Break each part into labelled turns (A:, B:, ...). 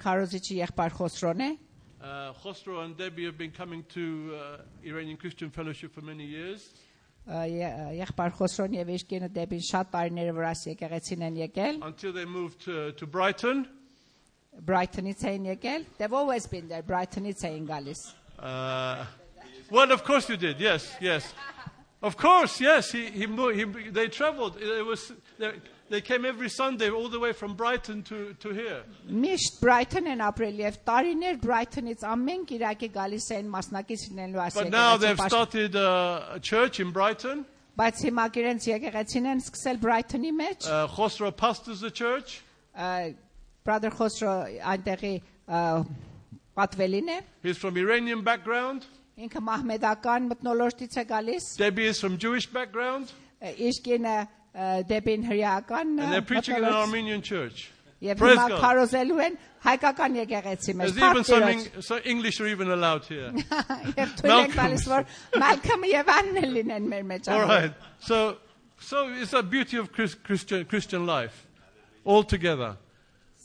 A: քարոզիչի եղբայր Խոսրոն է։
B: Khosrow and Debbie have been coming to Iranian Christian Fellowship for many years.
A: Եղբայր Խոսրոն եւ իր կինը Դեբին շատ տարիներ վրաս եկեղեցին են եկել։
B: Until they moved to Brighton.
A: Brighton-ից էին եկել. They've always been there. Brighton-ից էին գալիս։
B: Well, of course you did. Yes, yes. Of course, yes. They traveled. They came every Sunday all the way from Brighton to here.
A: Միշտ Brighton են ապրել եւ տարիներ Brighton-ից ամեն կիրակի գալիս էին մասնակից լինելու ասել։
B: But now they've started a church in Brighton.
A: Բայց հիմա իրենց եկեղեցին են սկսել Brighton-ի մեջ։
B: Khosrow pastors the church.
A: Brother Khosrow այնտեղի պատվելին է։
B: He's from Iranian background.
A: Ինքը մահմեդական մտնոլորտից է գալիս։
B: Debbie is from Jewish background.
A: Իսկ ինը Դեբին հրեական։
B: And they're preaching in an Armenian church.
A: Եվ հիմա քարոզելու են հայկական եկեղեցի մեջ։
B: There's even some English are even allowed here.
A: Եվ թույլ են տալիս որ Malcolm եւ Anne լինեն մեր մեջ։
B: All right. So it's a beauty of Christian life all together.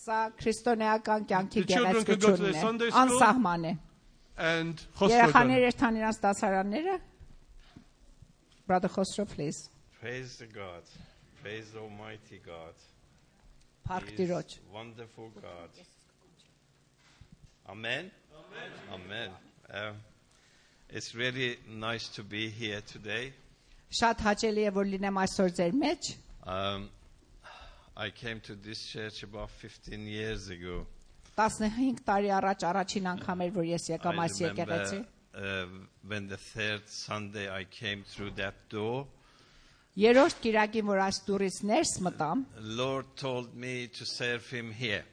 A: Սա քրիստոնեական կյանքի գեղեցկությունն է։ Անսահման է։
B: And
A: երեխաները երթան իրաց դասարանները։ Brother Khosrow, please.
C: Praise the God. Praise the Almighty God.
A: He is
C: wonderful God. Amen. Amen. Amen. It's really nice to be here today.
A: Շատ հաճելի է որ լինեմ այսօր ձեր մեջ։
C: I came to this church about 15 years ago.
A: 15 տարի առաջ առաջին անգամ էր որ ես եկամ այս եկեղեցի։
C: When the third Sunday I came through that door.
A: Երրորդ կիրակին որ այս դուրից ներս մտամ,
C: Lord told me to serve him here.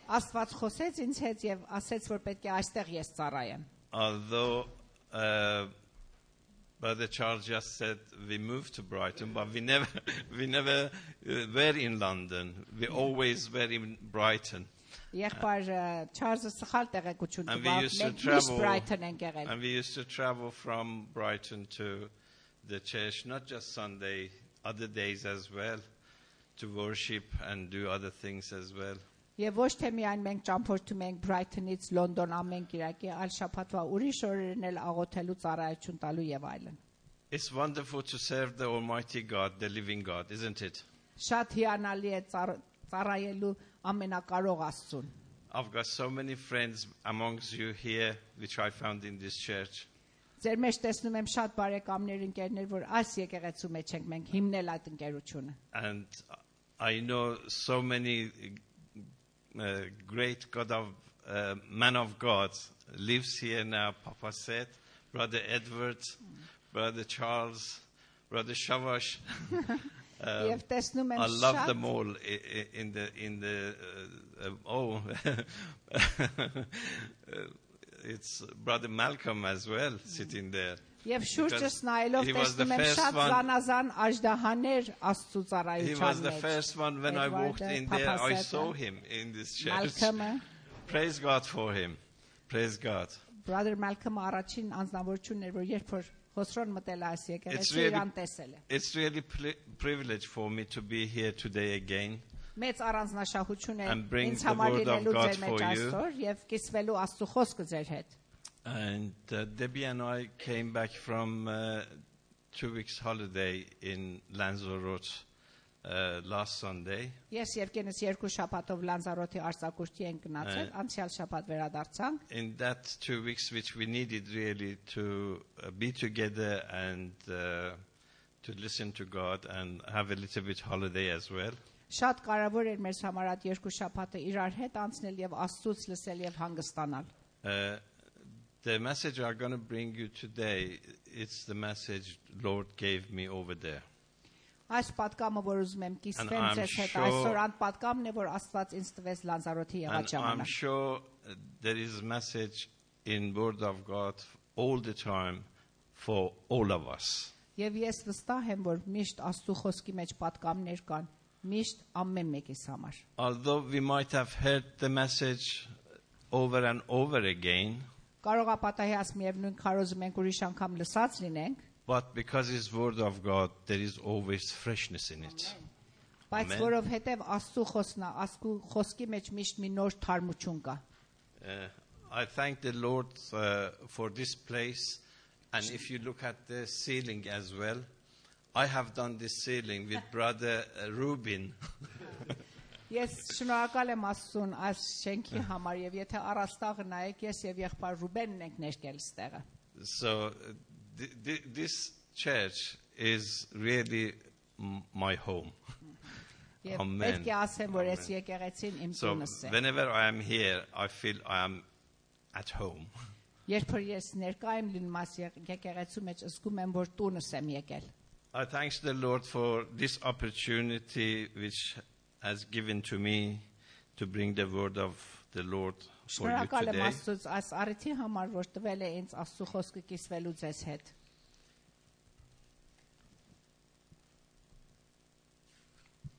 A: Աստված խոսեց ինձ հետ եւ ասեց որ պետք է այստեղ ես ծառայեմ։
C: Although Brother Charles just said we moved to Brighton, but we never were in London. We always were in Brighton.
A: Եղբայր Չարլզը սխալ տեղեկություն տվավ։
C: And we used to travel from Brighton to the church, not just Sunday, other days as well, to worship and do other things as well.
A: Եվ ոչ թե միայն մենք ճամփորդում ենք Brighton-ից Լոնդոն ամեն կիրակի, այլ շաբաթվա ուրիշ օրերն էլ աղոթելու ծառայություն տալու եւ այլն։
C: It's wonderful to serve the Almighty God, the living God, isn't it?
A: Շատ հիանալի է ծառայելու ամենակարող Աստծուն։
C: I've got so many friends amongst you here which I found in this church.
A: Ձեր մեջ տեսնում եմ շատ բարեկամներ, ընկերներ, որ այս եկեղեցու մեջ ենք մենք հիմնել այդ ընկերությունը։
C: And I know so many great man of God lives here now. Papa said, Brother Edward, Brother Charles, Brother Shavash. I love them all in the it's Brother Malcolm as well sitting there.
A: Եվ շուրջս նայելով տեսնում եմ շատ զանազան աժդահաներ Աստծո ծառայության մեջ։
C: He was the first one when I walked in there. I saw him in this church. Praise God for him. Praise God.
A: Brother Malcolm առաջին անձնավորությունն էր, որ երբ որ Խոսրոն մտել այս եկեղեցի իրան տեսել է։
C: It's really privilege for me to be here today again.
A: Մեծ առանձնահատկություն է ինձ համար լինելու ձեր մեջ այսօր եւ կիսվելու Աստծո խոսքը ձեր հետ։
C: And Debbie and I came back from 2 weeks holiday in Lanzarote last Sunday.
A: Ես եւ կենս երկու շաբաթով Լանզարոթի արձակուրդի ենք գնացել, անցյալ շաբաթ վերադարձանք։
C: In that 2 weeks which we needed really to be together and to listen to God and have a little bit holiday as well.
A: Շատ կարևոր էր մեր համար այդ երկու շաբաթը իրար հետ անցնել եւ Աստծուց լսել եւ հանգստանալ։
C: The message I'm going to bring you today, it's the message Lord gave me over there.
A: Այս պատկամը որ ուզում եմ կիսվեմ ձեզ հետ այսօր այն պատկամն է որ Աստված ինձ տվեց Լանզարոթի եղած ժամանակ։
C: I'm sure there is a message in Word of God all the time for all of us.
A: Եվ ես վստահ եմ որ միշտ Աստծո խոսքի մեջ պատկամներ կան միշտ ամեն մեկիս համար։
C: Although we might have heard the message over and over again,
A: կարող է պատահի միևնույն քարոզում ենք ուրիշ անգամ լսած լինենք,
C: but because it's Word of God, there is always freshness in it.
A: Բայց որովհետև Աստծո խոսքն է, Աստծո խոսքի մեջ միշտ մի նոր թարմություն կա։
C: I thank the Lord for this place, and if you look at the ceiling as well, I have done this ceiling with brother Rubin.
A: Ես շնորհակալ եմ Աստծուն այս շենքի համար եւ եթե առաստաղը նայեք ես եւ եղբայր Ռուբենն ենք ներկել ստեղը։
C: So this church is really my home. Amen. So whenever I am here, I feel I am at home. I thank the Lord for this opportunity which has given to me to bring the word of the Lord for you today.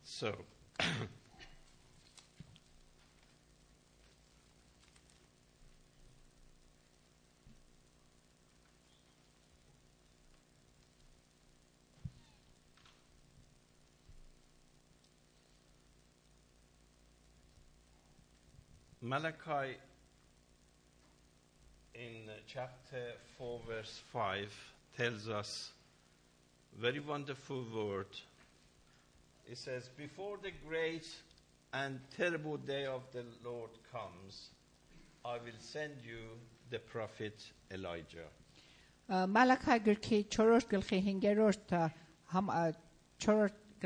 C: So, Malachi in chapter 4 verse 5 tells us a very wonderful word. It says, before the great and terrible day of the Lord comes, I will send you the prophet Elijah.
A: Malachi գրքի 4 գլխի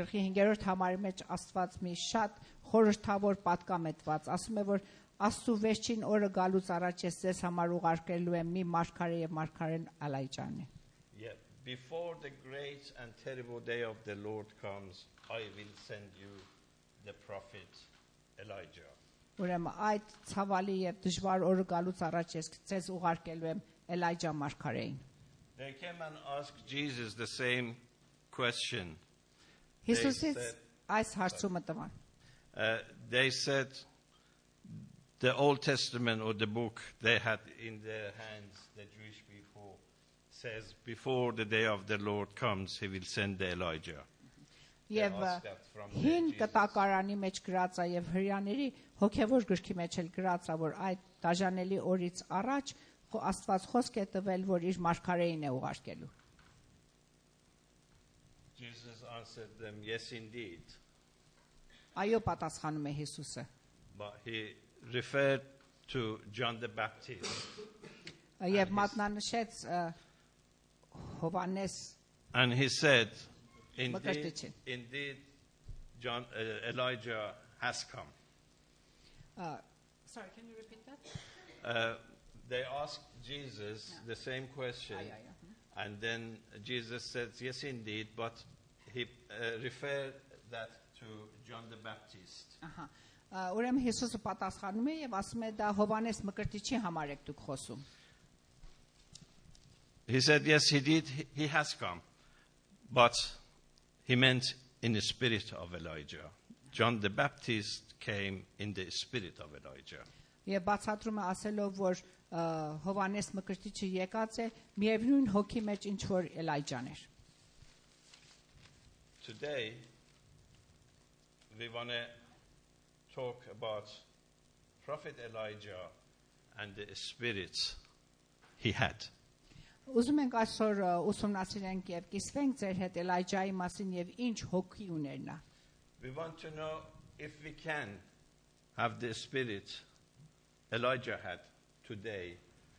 A: 5-րդ համարի մեջ Աստված մի շատ խորհրդավոր պատկամ է տված, ասում է որ Աստծո վերջին օրը գալուց առաջ ես ձեզ համար ուղարկելու եմ մի մարգարե եւ մարգարեն Ալայջանի.
C: Yeah, before the great and terrible day of the Lord comes, I will send you the prophet Elijah.
A: Ուրեմն այդ ցավալի եւ դժվար օրը գալուց առաջ ես ձեզ ուղարկելու եմ Էլայջա մարգարեին.
C: They came and asked Jesus the same question.
A: Հիսուսից այս հարցումը տվան.
C: They said the Old Testament or the book they had in their hands, the Jewish people, says before the day of the Lord comes, he will send the Elijah.
A: Եվ հին կտակարանի մեջ գրած է եւ հрьяաների հոգեվոր գրքի մեջ էլ գրած է որ այդ դաժանելի օրից առաջ Աստված խոսք է տվել որ իր մարգարեին է ուղարկելու.
C: Jesus answered them, yes indeed.
A: Այո պատասխանում է Հիսուսը.
C: But he referred to John the Baptist.
A: Եվ մատնանշեց Հովանես.
C: And he said, Indeed, Elijah has come.
A: Sorry, can you repeat that?
C: They asked Jesus the same question, and then Jesus said, yes, indeed, but he referred that to John the Baptist.
A: Ուրեմն Հիսուսը պատասխանում է եւ ասում է դա Հովանես Մկրտիչի համար եք դուք խոսում.
C: He said, yes, he did. He has come, but he meant in the spirit of Elijah. John the Baptist came in the spirit of Elijah.
A: Եվ բացատրում է ասելով որ Հովանես Մկրտիչը եկած է միևնույն հոգի մեջ ինչ որ Էլայջան էր.
C: Today we want to talk about Prophet Elijah and the spirit he had.
A: Ուզում ենք այսօր ուսումնասիրենք եւ կիսվենք ձեր հետ Էլայջայի մասին եւ ինչ հոգի ուներ նա.
C: We want to know if we can have the spirit Elijah had today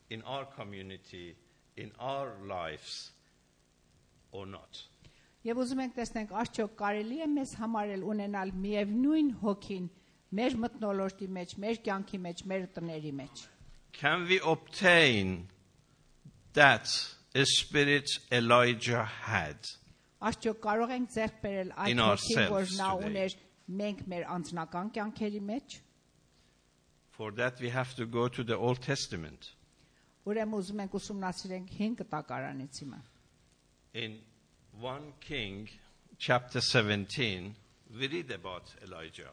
C: in our community, in our lives or not.
A: Եվ ուզում ենք տեսնենք արդյոք կարելի է մեզ համարել ունենալ միևնույն հոգին մեր մթնոլորտի մեջ, մեր կյանքի մեջ, մեր տների մեջ.
C: Can we obtain that a spirit Elijah had?
A: Արդյոք կարող ենք ձեռք բերել այդ հոգին, որ նա ուներ մենք մեր անձնական կյանքերի մեջ?
C: For that we have to go to the Old Testament.
A: Ուրեմն ուզում ենք ուսումնասիրենք հին կտակարանից հիմա.
C: In 1 King chapter 17 we read about Elijah.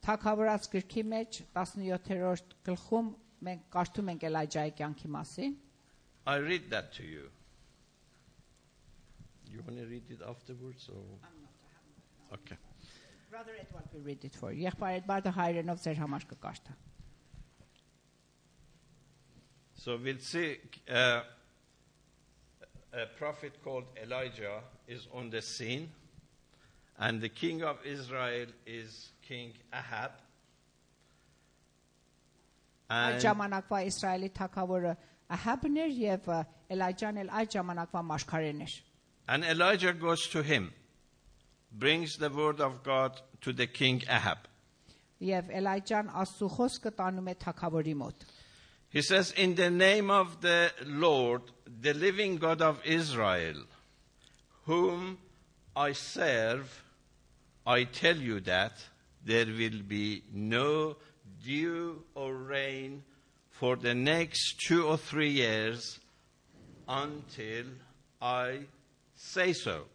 A: Թագավորաց գրքի մեջ 17-րդ գլխում մենք կարդում ենք Էլայջայի կյանքի մասին.
C: I read that to you. You want to read it afterwards or? Okay.
A: Brother Edward will read it for you. Եղբայր Էդվարդը հայերենով ձեր համար կկարդա.
C: So we'll see a prophet called Elijah is on the scene, and the king of Israel is King Ahab.
A: Այդ ժամանակվա Իսրայելի թագավորը Ահաբն էր եւ Էլիջան էլ այդ ժամանակվա մարգարեն էր.
C: And Elijah goes to him, brings the word of God to the king Ahab.
A: Եվ Էլիջան Աստծո խոսքը տանում է թագավորի մոտ.
C: He says, in the name of the Lord, the living God of Israel, whom I serve, I tell you that there will be no dew or rain for the next 2 or 3 years until I say so.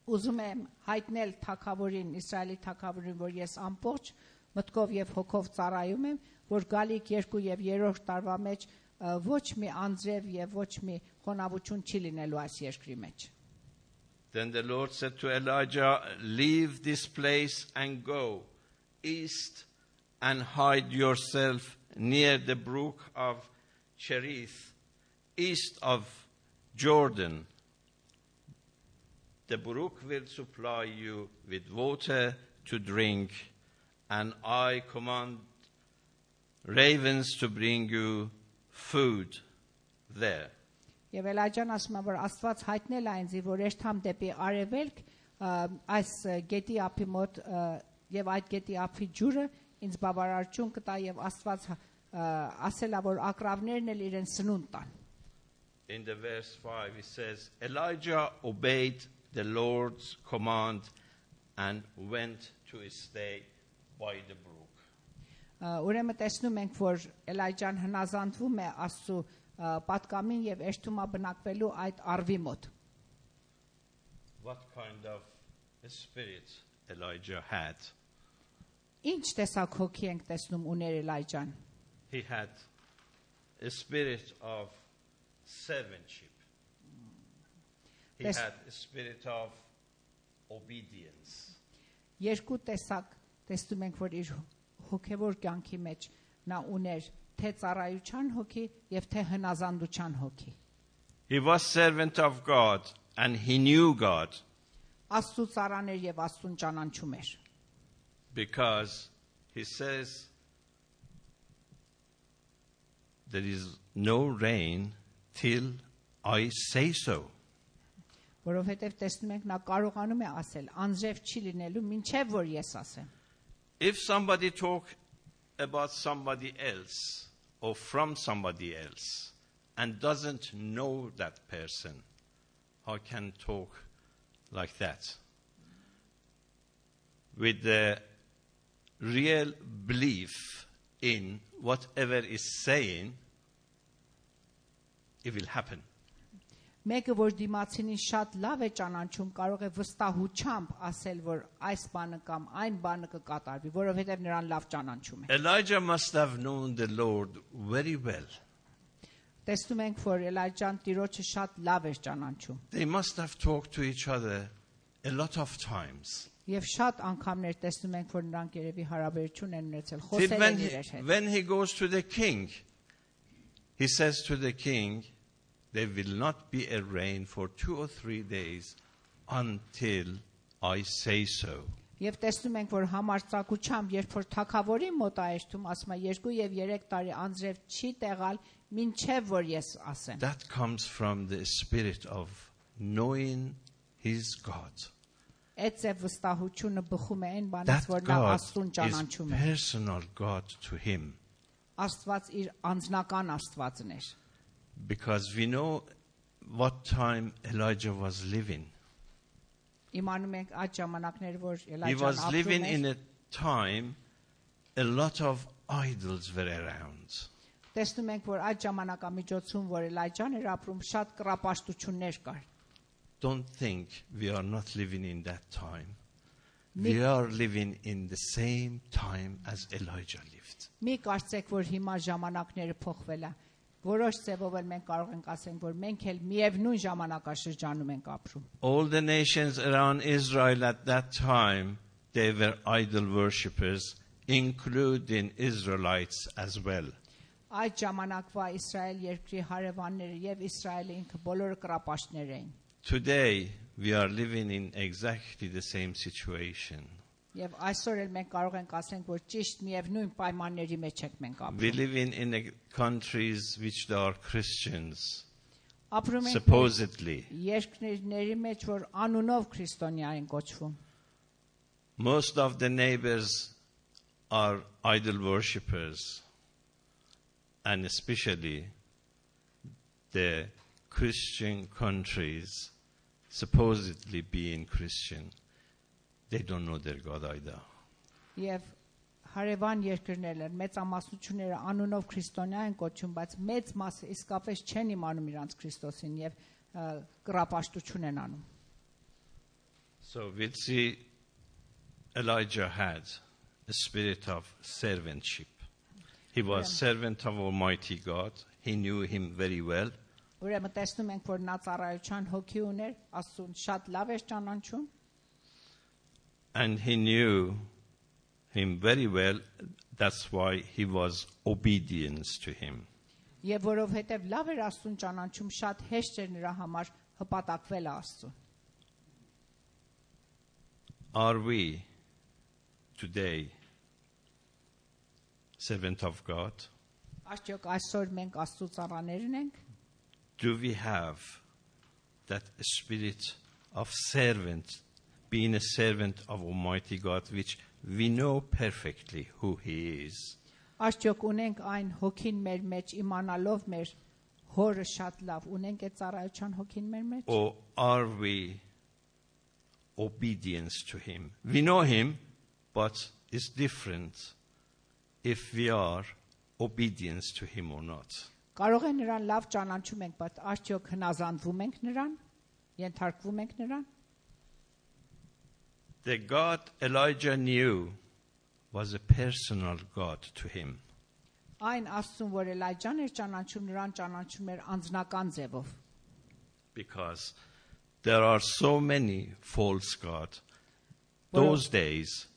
A: Ուզում եմ հայտնել թագավորին, Իսրայելի թագավորին, որ ես ամբողջ մտքով եւ հոգով ծառայում եմ, որ գալիք 2 եւ 3 տարվա մեջ ոչ մի անձրև եւ ոչ մի խոնավություն չի լինելու այս երկրի մեջ.
C: Then the Lord said to Elijah, leave this place and go east and hide yourself near the brook of Cherith, east of Jordan. The brook will supply you with water to drink, and I command ravens to bring you food there.
A: Եվ Էլիջան ասում է, որ Աստված հայտնել է ինձ, որ երթամ դեպի արևելք, այս գետի ափի մոտ եւ այդ գետի ափի ջուրը ինձ բավարարություն կտա եւ Աստված ասել է, որ ակրավներն էլ իրեն սնունդ տան.
C: In the verse 5 it says, Elijah obeyed the Lord's command and went to stay by the brook.
A: Ուրեմն տեսնում ենք, որ Էլիջան հնազանդվում է Աստծո պատկամին եւ էշտումա բնակվելու այդ արվի մոտ.
C: What kind of a spirit Elijah had?
A: Ինչ տեսակ հոգի ենք տեսնում ուներ Էլիջան?
C: He had a spirit of servantship. He had a spirit of obedience.
A: Երկու տեսակ տեսնում ենք, որ իր հոգևոր կյանքի մեջ նա ուներ թե ծառայության հոգի եւ թե հնազանդության հոգի.
C: He was servant of God and he knew God.
A: Աստծո ծառան էր եւ Աստծուն ճանաչում էր.
C: Because he says there is no rain till I say so.
A: Որովհետեւ տեսնում ենք նա կարողանում է ասել անձրև չի լինելու մինչեւ որ ես ասեմ.
C: If somebody talk about somebody else or from somebody else and doesn't know that person, how can talk like that? With the real belief in whatever is saying, it will happen.
A: Մեկը որ դիմացինին շատ լավ է ճանաչում, կարող է վստահությամբ ասել, որ այս բանը կամ այն բանը կկատարվի, որովհետև նրան լավ ճանաչում է.
C: Elijah must have known the Lord very well.
A: Տեսնում ենք, որ Էլիջան Տիրոջը շատ լավ էր ճանաչում.
C: They must have talked to each other a lot of times.
A: Եվ շատ անգամներ տեսնում ենք, որ նրանք երևի հարաբերություն են ունեցել, խոսել են իրար հետ.
C: When he goes to the king, he says to the king, there will not be a rain for 2 or 3 days until I say so.
A: Եվ տեսնում ենք, որ համարձակությամբ, երբ որ թագավորի մոտ այստում ասում է 2 եւ 3 տարի անձրև չի տեղալ, մինչեւ որ ես ասեմ.
C: That comes from the spirit of knowing his God.
A: Այդ վստահությունը բխում է այն բանից, որ նա Աստծուն ճանաչում է.
C: That God is personal God to him.
A: Աստված իր անձնական Աստվածն էր.
C: Because we know what time Elijah was living.
A: He was
C: living in a time a lot of idols were around. Don't think we are not living in that time. We are living in the same time as Elijah lived.
A: Որոշ ձևով էլ մենք կարող ենք ասենք, որ մենք էլ միևնույն ժամանակաշրջանում ենք ապրում.
C: All the nations around Israel at that time they were idol worshippers, including Israelites as well.
A: Այդ ժամանակվա Իսրայել երկրի հարևանները եւ Իսրայելը ինքը բոլորը կրապաշտներ էին.
C: Today we are living in exactly the same situation.
A: Եվ այսօր էլ մենք կարող ենք ասենք, որ ճիշտ միևնույն պայմանների մեջ ենք մենք ապրում.
C: We live in countries which they are Christians.
A: Ապրում ենք
C: supposedly.
A: Երկրների մեջ, որ անունով քրիստոնյա են կոչվում.
C: Most of the neighbors are idol worshippers, and especially the Christian countries, supposedly being Christian, they don't know their God either.
A: Եվ հարևան երկրներն են, մեծամասնությունները անունով քրիստոնյա են կոչվում, բայց մեծ մասը իսկապես չեն իմանում իրանց Քրիստոսին եւ կրապաշտություն են անում.
C: So we'll see Elijah had a spirit of servantship. He was servant of Almighty God. He knew him very well.
A: Ուրեմն տեսնում ենք, որ նա ծառայության հոգի ուներ, Աստծուն շատ լավ էր ճանաչում.
C: And he knew him very well. That's why he was obedient to him.
A: Եվ որովհետև լավ էր Աստծուն ճանաչում, շատ հեշտ էր նրա համար հպատակվել Աստծուն.
C: Are we today servant of God?
A: Արդյոք այսօր մենք Աստծո ծառաներն ենք?
C: Do we have that spirit of servant, being a servant of Almighty God, which we know perfectly who He is?
A: Արդյոք ունենք այն հոգին մեր մեջ, իմանալով մեր հորը շատ լավ, ունենք այդ ծառայության հոգին մեր մեջ?
C: Or are we obedient to Him? We know Him, but it's different if we are obedient to Him or not.
A: Կարող է նրան լավ ճանաչում ենք, բայց արդյոք հնազանդվում ենք նրան, ենթարկվում ենք նրան?
C: The God Elijah knew was a personal God to him.
A: Այն Աստծուն, որ Էլիջան էր ճանաչում, նրան ճանաչում էր անձնական ձևով.
C: Because there are so many false gods those days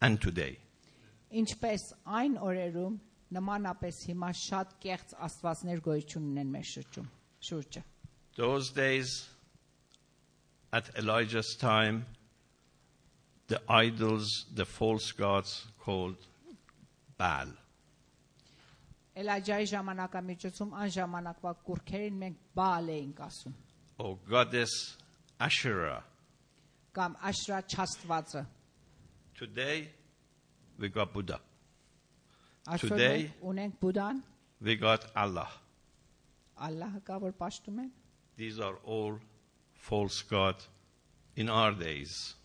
C: and today.
A: Ինչպես այն օրերում նմանապես հիմա շատ կեղծ աստվածներ գոյություն ունեն մեր շուրջը.
C: Those days, at Elijah's time, the idols, the false gods called Baal.
A: Էլիջայի ժամանակամիջոցում այն ժամանակվա կուռքերին մենք Բաալ էինք ասում.
C: Or goddess Asherah.
A: Կամ Աշրա չաստվածը.
C: Today, we got Buddha.
A: Today, ունենք Բուդան,
C: we got Allah.
A: Ալլահը կա, որ պաշտում են.
C: These are all false gods in our days.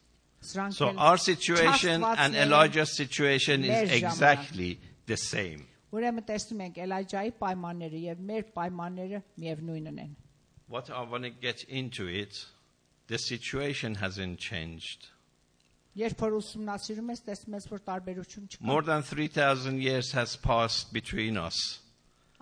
A: Սրանք
C: So our situation and Elijah's situation is exactly the same.
A: Ուրեմն տեսնում ենք Էլիջայի պայմանները եւ մեր պայմանները միևնույնն են.
C: What I want to get into it, the situation hasn't changed.
A: Երբ որ ուսումնասիրում ես, տեսնում ես, որ տարբերություն չկա.
C: More than 3,000 years has passed between us.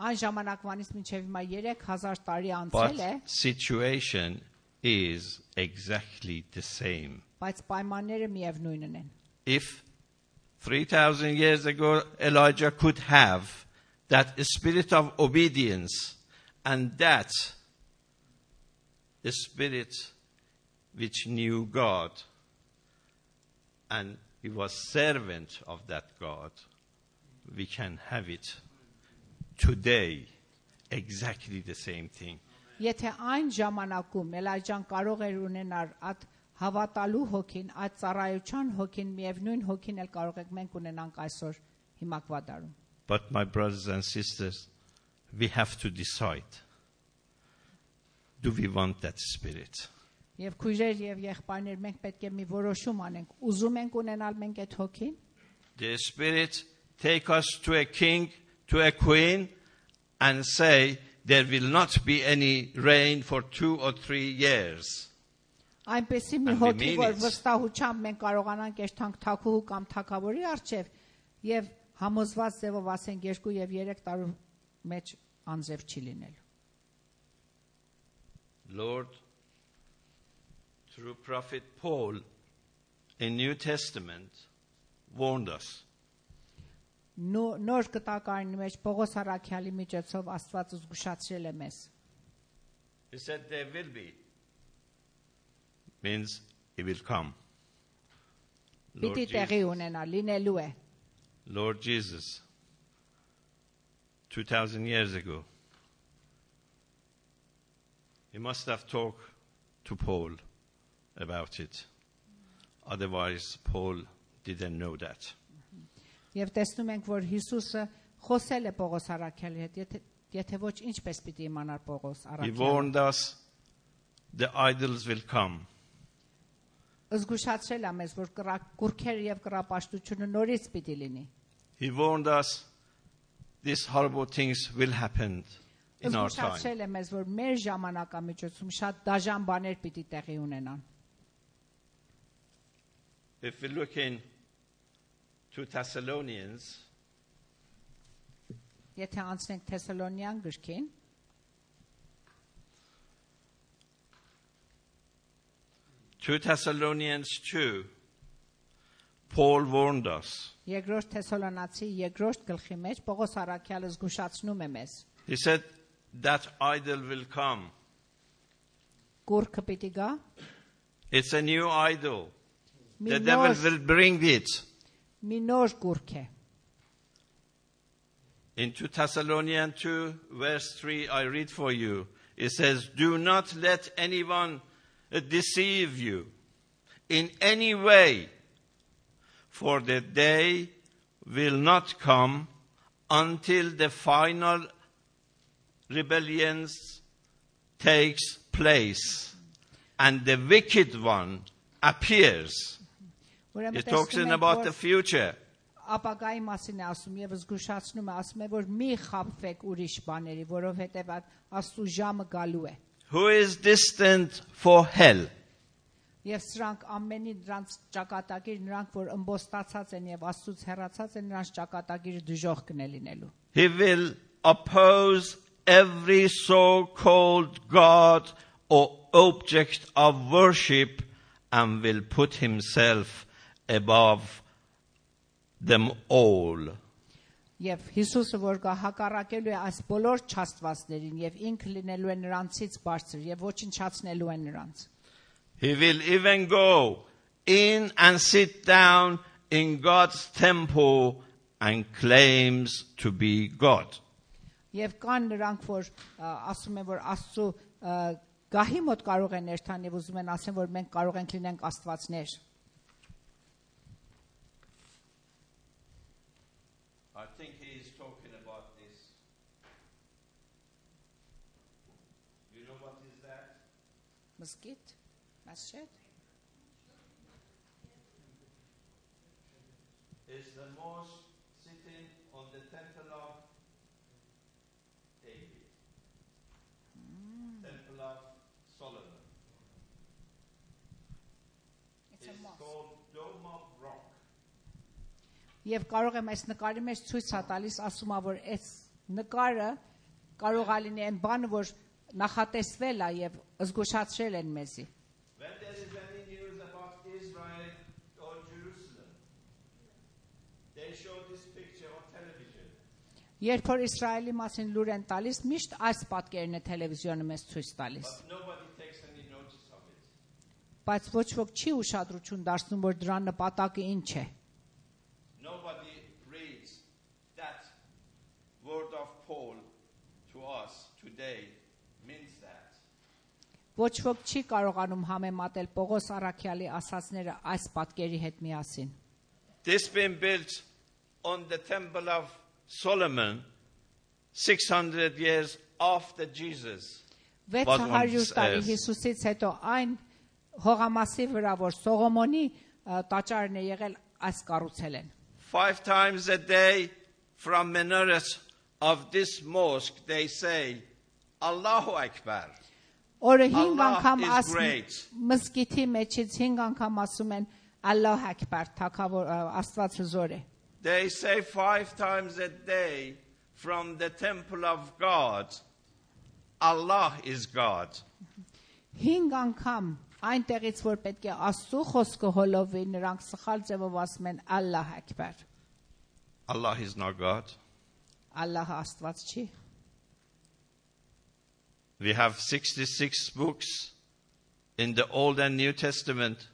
A: Այն ժամանակվանից մինչև հիմա 3000 տարի անցել
C: But
A: է,
C: situation is exactly the same.
A: բայց պայմանները միևնույնն են.
C: If 3,000 years ago Elijah could have that spirit of obedience and that spirit which knew God, and he was servant of that God, we can have it today, exactly the same thing.
A: Եթե այն ժամանակում Էլիջան կարող էր ունենալ այդ հավատալու հոգին, այդ ծառայության հոգին, միևնույն հոգին էլ կարող ենք մենք ունենանք այսօր հիմակվա դարում.
C: But my brothers and sisters, we have to decide. Do we want that spirit?
A: Եվ քույրեր եւ եղբայրներ, մենք պետք է մի որոշում անենք. Ուզում ենք ունենալ մենք այդ հոգին?
C: The spirit take us to a king, to a queen, and say there will not be any rain for 2 or 3 years.
A: Այնպեսի մի հոգի, որ վստահությամբ մենք կարողանանք երթանք թագուհու կամ թագավորի առջև եւ համոզված ձևով ասենք 2 եւ 3 տարի մեջ անձև չի լինելու.
C: Lord, through prophet Paul in New Testament warned us.
A: Նոր կտակարանի մեջ Պողոս առաքյալի միջոցով Աստված զգուշացրել է մեզ.
C: He said there will be. Means it will come.
A: Պիտի տեղի ունենա, լինելու է.
C: Lord Jesus, 2,000 years ago, he must have talked to Paul about it. Otherwise, Paul didn't know that.
A: Եվ տեսնում ենք, որ Հիսուսը խոսել է Պողոս առաքյալի հետ, եթե ոչ ինչպես պիտի իմանար Պողոս առաքյալը.
C: He warned us the idols will come.
A: Զգուշացրել է մեզ, որ կուրքերը եւ կռապաշտությունը նորից պիտի լինի.
C: He warned us these horrible things will happen in our time.
A: Զգուշացրել է մեզ, որ մեր ժամանակամիջոցում շատ դաժան բաներ պիտի տեղի ունենան.
C: If we look in to Thessalonians,
A: Եթե անցնենք Թեսալոնյան գրքին,
C: 2 Thessalonians 2, Paul warned us.
A: Երկրորդ Թեսալոնացի երկրորդ գլխի մեջ Պողոս առաքյալը զգուշացնում է մեզ.
C: He said that idol will come.
A: Կուրքը պիտի գա,
C: It's a new idol. The devil will bring it.
A: մի նոր կուրք է.
C: In 2 Thessalonians 2, verse 3, I read for you. It says, do not let anyone deceive you in any way, for the day will not come until the final rebellion takes place and the wicked one appears. It talks about the future.
A: Ապագայի մասին է ասում եւ զգուշացնում է, ասում է, որ մի խաբվեք ուրիշ բաների, որովհետեւ Աստծո ժամը գալու է.
C: Who is destined for hell?
A: Եվ սրանք ամենի նրանց ճակատագիր, նրանք որ ըմբոստացած են եւ Աստծուց հեռացած են, նրանց ճակատագիրը դժոխք կն է լինելու.
C: He will oppose every so-called God or object of worship and will put himself above them all.
A: Եվ Հիսուսը որ գա հակառակելու է այս բոլոր չաստվածներին եւ ինքը լինելու է նրանցից բարձր եւ ոչնչացնելու է նրանց.
C: He will even go in and sit down in God's temple and claims to be God.
A: Եվ կան նրանք որ ասում են որ Աստծո գահի մոտ կարող են ներթան եւ ուզում են ասեն որ մենք կարող ենք լինենք աստվածներ.
C: I think he is talking about this. You know what is that?
A: Մզկիթ, masjid.
C: It's the mosque sitting on the temple of David. Temple of Solomon.
A: It's a
C: It's
A: mosque.
C: called Dome of Rock.
A: Եվ կարող եմ այս նկարի մեջ ցույց տալիս ասում ա որ այս նկարը կարող է լինի այն բանը որ նախատեսվել է եւ զգուշացրել են մեզի.
C: When there is any news about Israel or Jerusalem, they show this picture on television.
A: Երբ որ Իսրայելի մասին լուր են տալիս, միշտ այս պատկերն է տելևիզիոնը մեզ ցույց տալիս.
C: But nobody takes any notice of it.
A: Բայց ոչ ոք չի ուշադրություն դարձնում որ դրա նպատակը ինչ է.
C: Nobody reads that word of Paul to us today means that.
A: Ոչ ոք չի կարողանում համեմատել Պողոս առաքյալի ասածները այս պատկերի հետ միասին.
C: This been built on the temple of Solomon 600 years after Jesus.
A: 600 տարի Հիսուսից հետո այն հողամասի վրա որ Սողոմոնի տաճարն է եղել այս կառուցել են.
C: 5 times a day from minaret of this mosque they say Allahu Akbar.
A: Օրը 5
C: Allah
A: անգամ
C: is great.
A: մզկիթի մեջից 5 անգամ ասում են Ալլահ Ակբար, թագավոր Աստված հզոր է.
C: They say 5 times a day from the temple of God Allah is God.
A: 5 անգամ Այնտեղից որ պետք է Աստծո խոսքը հոլովի, նրանք սխալ ձևով ասում են Ալլահ Աքբար։
C: Allah is not God.
A: Ալլահը Աստված չի։
C: We have 66 books in the Old and New Testament.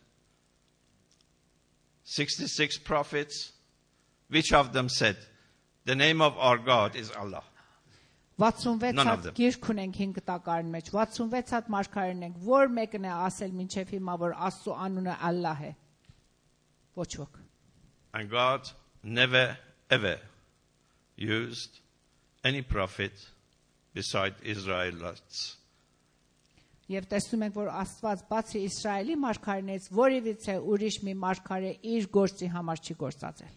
C: 66 prophets. Which of them said, the name of our God is Allah?
A: 66 հատ գիրք ունենք 5 տակարան մեջ, 66 հատ մարգարեն ենք, որ մեկն է ասել մինչև հիմա, որ Աստծո անունը Ալլահ է։ Ոչ ոք։
C: And God never ever used any prophet beside Israelites.
A: Եվ տեսնում ենք, որ Աստված բացի Իսրայելի մարգարեներից որևիցե ուրիշ մի մարգարե իր գործի համար չի գործածել։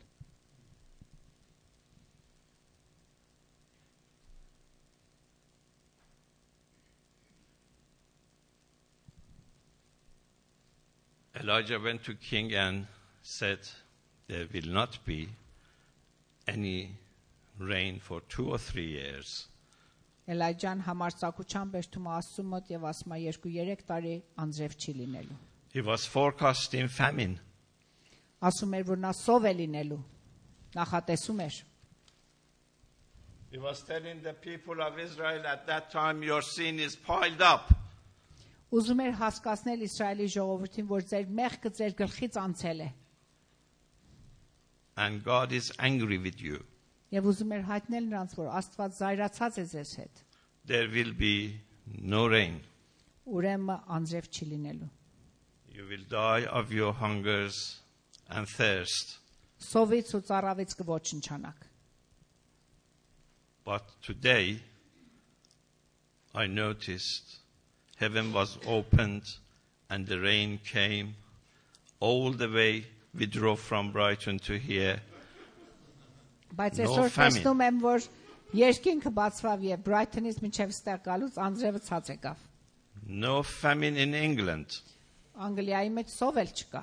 C: Elijah went to king and said, there will not be any rain for 2 or 3 years.
A: Էլայջան համարձակությամբ էջտում Աստծո մոտ եւ ասում է 2-3 տարի անձրև չի լինելու։
C: He was forecasting famine.
A: Ասում էր, որ նա սով է լինելու։ Նախատեսում էր։
C: He was telling the people of Israel at that time, your sin is piled up.
A: Ուզում էր հասկացնել Իսրայելի ժողովրդին, որ ձեր մեղքը ձեր գլխից անցել է։
C: And God is angry with you.
A: Եվ ուզում էր հայտնել նրանց, որ Աստված զայրացած է ձեզ հետ։
C: There will be no rain.
A: Ուրեմն անձրև չի լինելու։
C: You will die of your hungers and thirst.
A: Սովից ու ծառավից կոչնչանաք։
C: But today, I noticed heaven was opened and the rain came all the way. We drove from Brighton to here.
A: Բայց այսօր տեսնում եմ, որ երկինքը բացվավ եւ Brighton-ից մինչեւ ստեղ գալուց անձրևը ցած եկավ։
C: No famine in England.
A: Անգլիայի մեջ սով էլ չկա։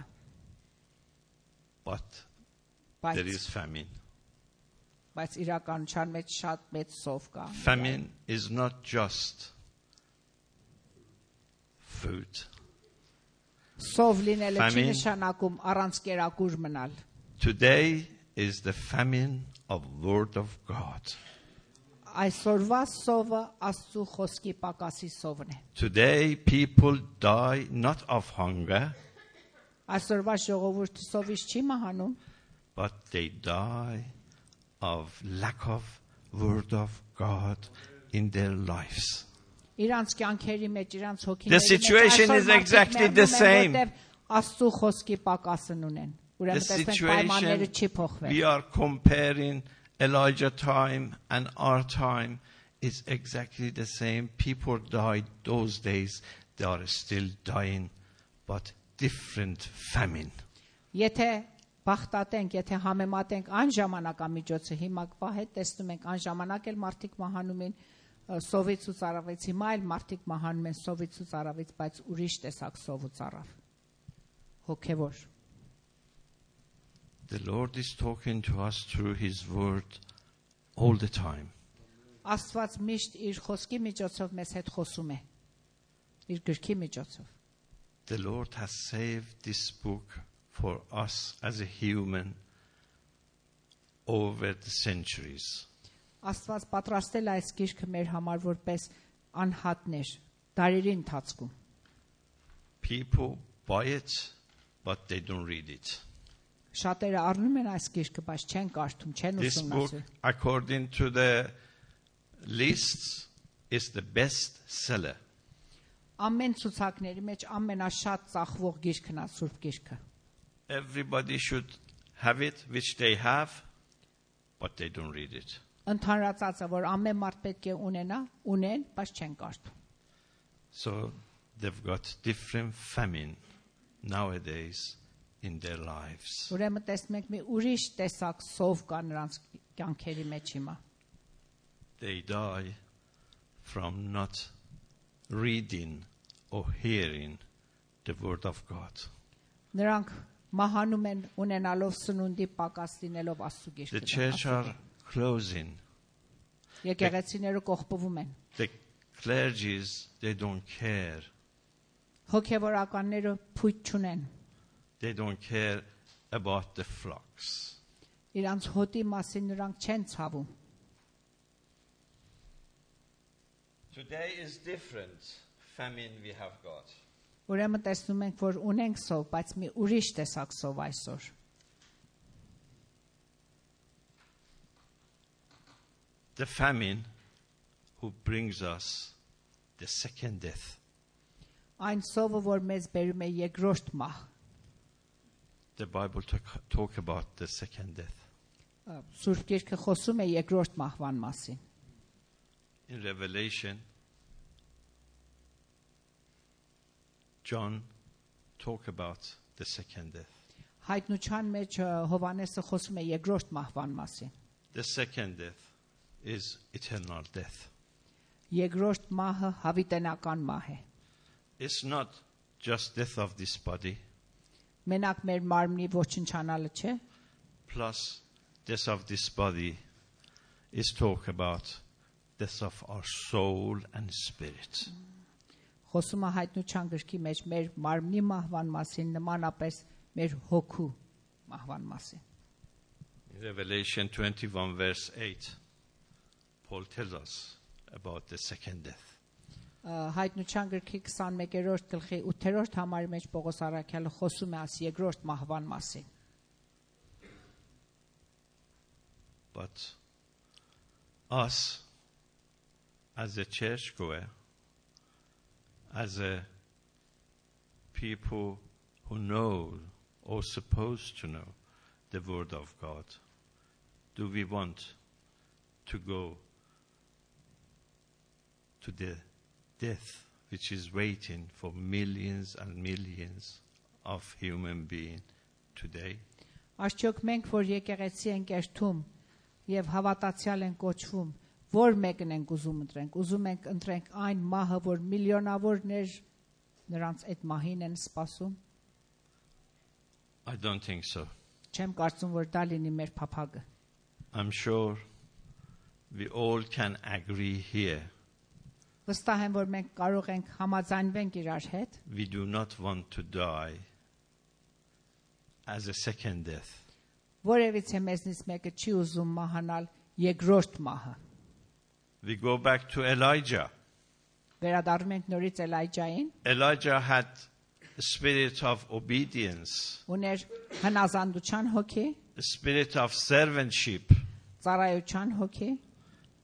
C: But there is famine.
A: Բայց իրականության մեջ շատ մեծ սով կա։
C: Famine is not just food.
A: Սով լինելը չի նշանակում առանց կերակուր մնալ։
C: Today is the famine of word of God.
A: Այսօրվա սովը Աստծո խոսքի պակասի սովն է։
C: Today people die not of hunger,
A: Այսօրվա ժողովուրդը սովից չի մահանում,
C: but they die of lack of word of God in their lives.
A: Իրանց կյանքերի մեջ, իրանց հոգիների
C: The situation is exactly the same.
A: Աստծո խոսքի պակասն ունեն։
C: The situation we are comparing Elijah time and our time is exactly the same. People died those days. They are still dying, but different famine.
A: Եթե բախտատենք, եթե համեմատենք այն ժամանակամիջոցը, հիմա հետ տեսնում ենք այն ժամանակ էլ մարդիկ մահանում են սովից ու ծառավից, հիմա էլ մարդիկ մահանում են սովից ու ծառավից, բայց ուրիշ տեսակ սով ու ծառավ։ Հոգևոր։
C: The Lord is talking to us through His word all the time.
A: Աստված միշտ իր խոսքի միջոցով մեզ հետ խոսում է։ Իր գրքի միջոցով։
C: The Lord has saved this book for us as a human over the centuries.
A: Աստված պատրաստել այս գիրքը մեր համար որպես անհատներ դարերի ընթացքում։
C: People buy it, but they don't read it.
A: Շատերը առնում են այս գիրքը, բայց չեն կարդում, չեն
C: This book,
A: ուսումնասիրում։
C: according to the lists, is the best seller.
A: Ամեն ցուցակների մեջ ամենաշատ ծախվող գիրքն է Սուրբ գիրքը։
C: Everybody should have it, which they have, but they don't read it.
A: Ընդհանրացածը, որ ամեն մարդ պետք է ունեն, բայց չեն կարդում։
C: So they've got different famine nowadays in their lives.
A: Ուրեմն տեսնում ենք մի ուրիշ տեսակ սով կա նրանց կյանքերի մեջ հիմա։
C: They die from not reading or hearing the word of God.
A: Նրանք մահանում են ունենալով սնունդի պակաս լինելով Աստծո գիրքը։
C: The church are closing.
A: Եկեղեցիները կողպվում են։
C: The clergies, they don't care.
A: Հոգևորականները փույթ չունեն։
C: They don't care about the flocks.
A: Իրանց հոտի մասին նրանք չեն ցավում։
C: Today is different famine we have got.
A: Ուրեմն տեսնում ենք, որ ունենք սով, բայց մի ուրիշ տեսակ սով այսօր։
C: The famine who brings us the second death.
A: Այն սովը, որ մեզ բերում է երկրորդ մահ։
C: The Bible talk about the second death.
A: Սուրբ Գիրքը խոսում է երկրորդ մահվան մասին։
C: In Revelation, John talk about the second death.
A: Հայտնության մեջ Հովհաննեսը խոսում է երկրորդ մահվան մասին։
C: The second death is eternal death.
A: Երկրորդ մահը հավիտենական մահ է։
C: It's not just death of this body.
A: Մենակ մեր մարմնի ոչնչանալը չէ։
C: Plus death of this body is talk about death of our soul and spirit.
A: Խոսում է հայտնության գրքի մեջ մեր մարմնի մահվան մասին, նմանապես մեր հոգու մահվան մասին։
C: In Revelation 21 verse 8, Paul tells us about the second death.
A: Հայտնության գրքի 21-րդ գլխի 8-րդ համարի մեջ Պողոս առաքյալը խոսում է այս երկրորդ մահվան մասին։
C: But us as a churchgoer, as a people who know or supposed to know the word of God, do we want to go to the death which is waiting for millions and millions of human beings today?
A: Աշխոք մենք, որ եկեղեցի ենք երթում եւ հավատացյալ են կոչվում, որ մեկն ենք ուզում ընտրենք։ Ուզում ենք ընտրենք այն մահը, որ միլիոնավորներ նրանց այդ մահին են սպասում։
C: I don't think so.
A: Չեմ կարծում, որ դա լինի մեր փափագը։
C: I'm sure we all can agree here.
A: Վստահ եմ, որ մենք կարող ենք համաձայնվենք իրար հետ։
C: We do not want to die as a second death.
A: Որևիցե մեզնից մեկը չի ուզում մահանալ երկրորդ մահը։
C: We go back to Elijah.
A: Վերադառնում ենք նորից Էլիջային։
C: Elijah had a spirit of obedience,
A: Ուներ հնազանդության հոգի,
C: a spirit of servantship.
A: ծառայության հոգի,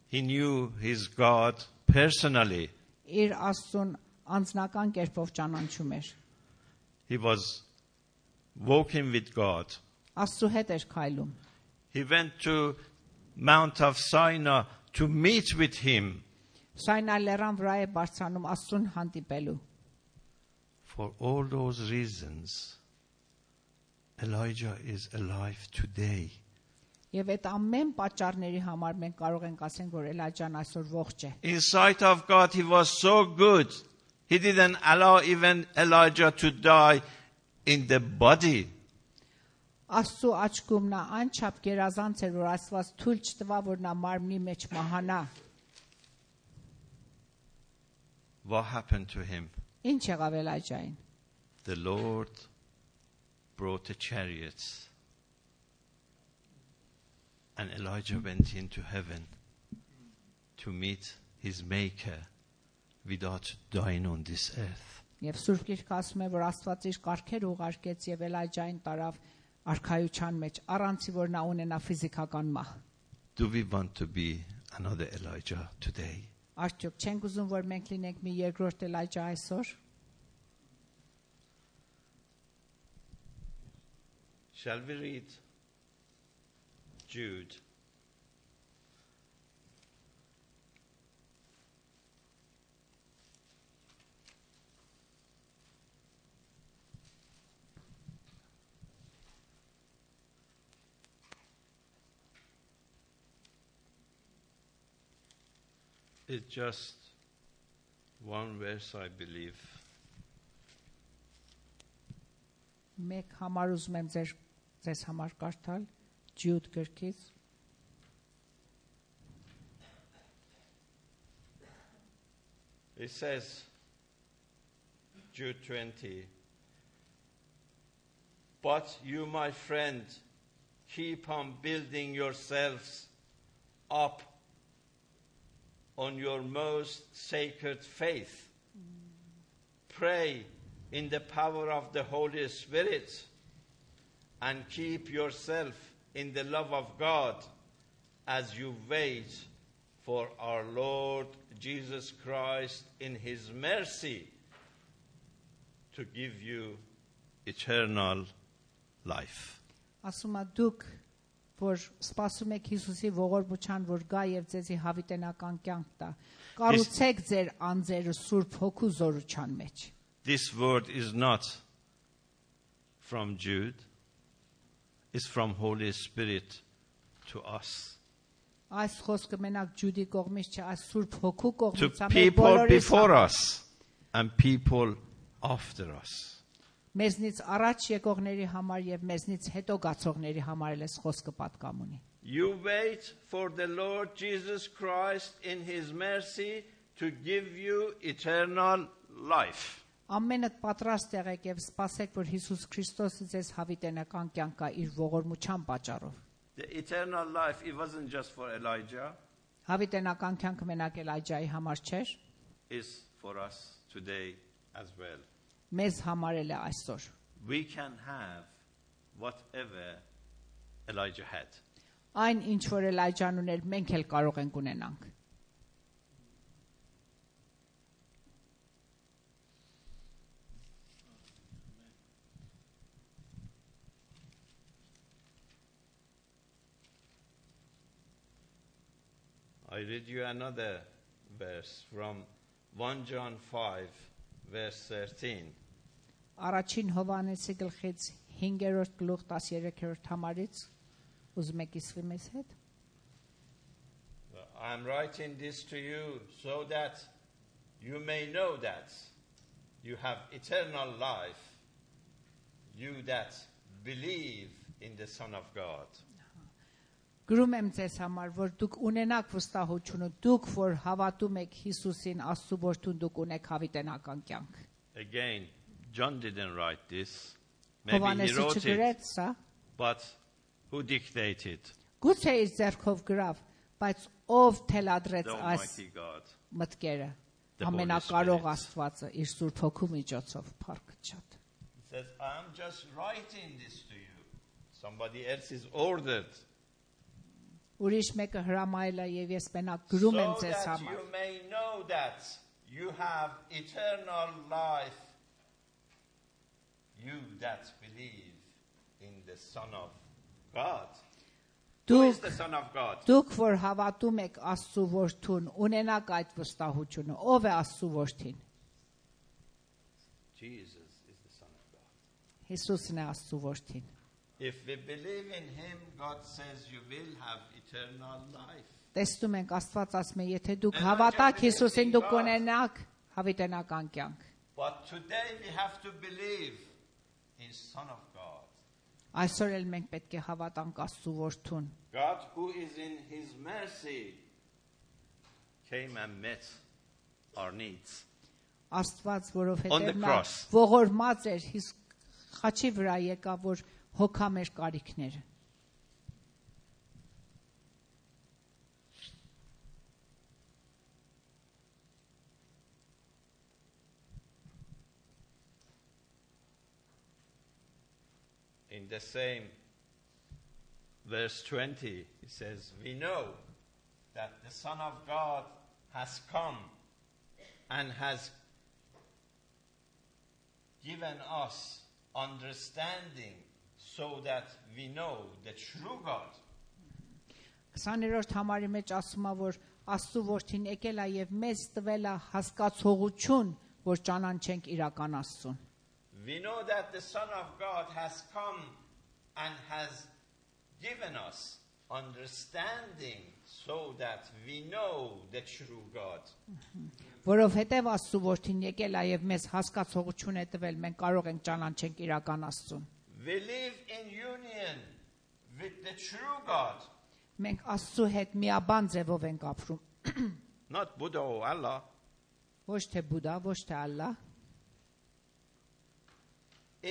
C: He knew his God personally.
A: իր Աստծուն անձնական կերպով ճանաչում էր։
C: He was walking with God.
A: Աստծու հետ էր քայլում։
C: He went to Mount of Sinai to meet with him.
A: Սայնա լեռան վրա է բարձրանում Աստծուն հանդիպելու։
C: For all those reasons, Elijah is alive today.
A: Եվ այդ ամեն պատճառների համար մենք կարող ենք ասենք, որ Էլիջան այսօր ողջ է։
C: In sight of God, he was so good. He didn't allow even Elijah to die in the body.
A: Աստծու աչքում նա անչափ գերազանց էր, որ Աստված թույլ չտվա, որ նա մարմնի մեջ մահանա։
C: What happened to him?
A: Ինչ եղավ Էլիջային։
C: The Lord brought a chariot, and Elijah went into heaven to meet his Maker without dying on this earth.
A: Եվ Սուրբ Գիրքը ասում է, որ Աստված իր կարգերը ուղարկեց եւ Էլիջային տարավ արքայության մեջ, առանց որ նա ունենա ֆիզիկական մահ։
C: Do we want to be another Elijah today?
A: Արդյոք չենք ուզում, որ մենք լինենք մի երկրորդ Էլիջա այսօր։
C: Shall we read Jude? It's just one verse, I believe.
A: Մեկ համար ուզում եմ ձեզ համար կարդալ Ջյուդ գրքից։
C: It says, Jude 20. But you, my friend, keep on building yourselves up on your most sacred faith. Pray in the power of the Holy Spirit and keep yourself in the love of God as you wait for our Lord Jesus Christ in His mercy to give you eternal life.
A: Ասում է դուք որ սպասում եք Հիսուսի ողորմության որ գա եւ ձեզի հավիտենական կյանք տա կառուցեք ձեր անձերը Սուրբ Հոգու զորության մեջ.
C: This word is not from Jude, it's from Holy Spirit to us.
A: Այս խոսքը մենակ Ջուդի կողմից չէ, այս Սուրբ Հոգու
C: To
A: կողմից է
C: people before us and people after us.
A: Մեզնից առաջ եկողների համար եւ մեզնից հետո գացողների համար էլ էս խոսքը պատկամ ունի.
C: You wait for the Lord Jesus Christ in His mercy to give you eternal life.
A: Ամենդ պատրաստ եղեք եւ սպասեք որ Հիսուս Քրիստոսը ձեզ հավիտենական կյանք կա իր ողորմության պատճառով.
C: The eternal life, it wasn't just for Elijah.
A: Հավիտենական կյանքը մենակ Էլիջայի համար չէր,
C: Is for us today as well.
A: մեզ համար էլ է այսօր.
C: We can have whatever Elijah had.
A: Այն ինչ որ Էլիջան ուներ, մենք էլ կարող ենք ունենանք.
C: I read you another verse from 1 John 5, verse 13.
A: Առաջին Հովհաննեսի գլխից 5-րդ գլուխ 13-րդ համարից ուզում եք իսվի մեզ հետ.
C: I am writing this to you so that you may know that you have eternal life, you that believe in the Son of God.
A: Գրում եմ ձեզ համար, որ դուք ունենաք վստահությունը, դուք որ հավատում եք Հիսուսին, Աստծո որդուն, դուք ունեք հավիտենական կյանք.
C: Again, John didn't write this. Maybe he
A: Հովհաննեսը
C: wrote
A: չգրեց
C: it,
A: սա,
C: but who dictated?
A: գուցե իր ձեռքով գրավ, բայց ով թելադրեց
C: The
A: այս
C: Almighty God.
A: մտքերը,
C: The Holy
A: ամենակարող
C: Spirit.
A: Աստվածը իր Սուրբ Հոգու միջոցով, փառքը շատ.
C: He says, I'm just writing this to you. Somebody else is ordered.
A: Ուրիշ մեկը հրամայել է եւ ես մենակ գրում եմ
C: So
A: ձեզ
C: that
A: համար.
C: you may know that you have eternal life, you that believe in the Son of God. Who is the Son of God?
A: Դուք որ հավատում եք Աստծո որդուն, ունենաք այդ վստահությունը, ով է Աստծո որդին?
C: Jesus is the Son of God.
A: Հիսուսն է Աստծո որդին.
C: If we believe in Him, God says you will have eternal life.
A: Տեսնում ենք Աստված ասում է, եթե դուք հավատաք Հիսուսին, դուք կունենաք հավիտենական կյանք.
C: But today we have to believe in Son of God.
A: Այսօր էլ մենք պետք է հավատանք Աստծո որդուն.
C: God who is in His mercy came and met our needs.
A: Աստված,
C: On the
A: որովհետև նա
C: cross.
A: ողորմած էր, խաչի վրա եկավ, որ հոգա մեր կարիքները.
C: In the same verse 20, it says, we know that the Son of God has come and has given us understanding so that we know the true God.
A: 20-րդ համարի մեջ ասում է, որ Աստծո որդին եկել է եւ մեզ տվել է հասկացողություն, որ ճանաչենք իրական Աստծուն.
C: We know that the Son of God has come and has given us understanding so that we know the true God.
A: Որովհետև Աստծո որդին եկել է եւ մեզ հասկացողություն է տվել, մենք կարող ենք ճանաչենք իրական Աստծուն.
C: We live in union with the true God.
A: Մենք Աստծո հետ միաբան ձևով ենք ապրում,
C: Not Buddha or Allah.
A: ոչ թե Բուդա, ոչ թե Ալլահ,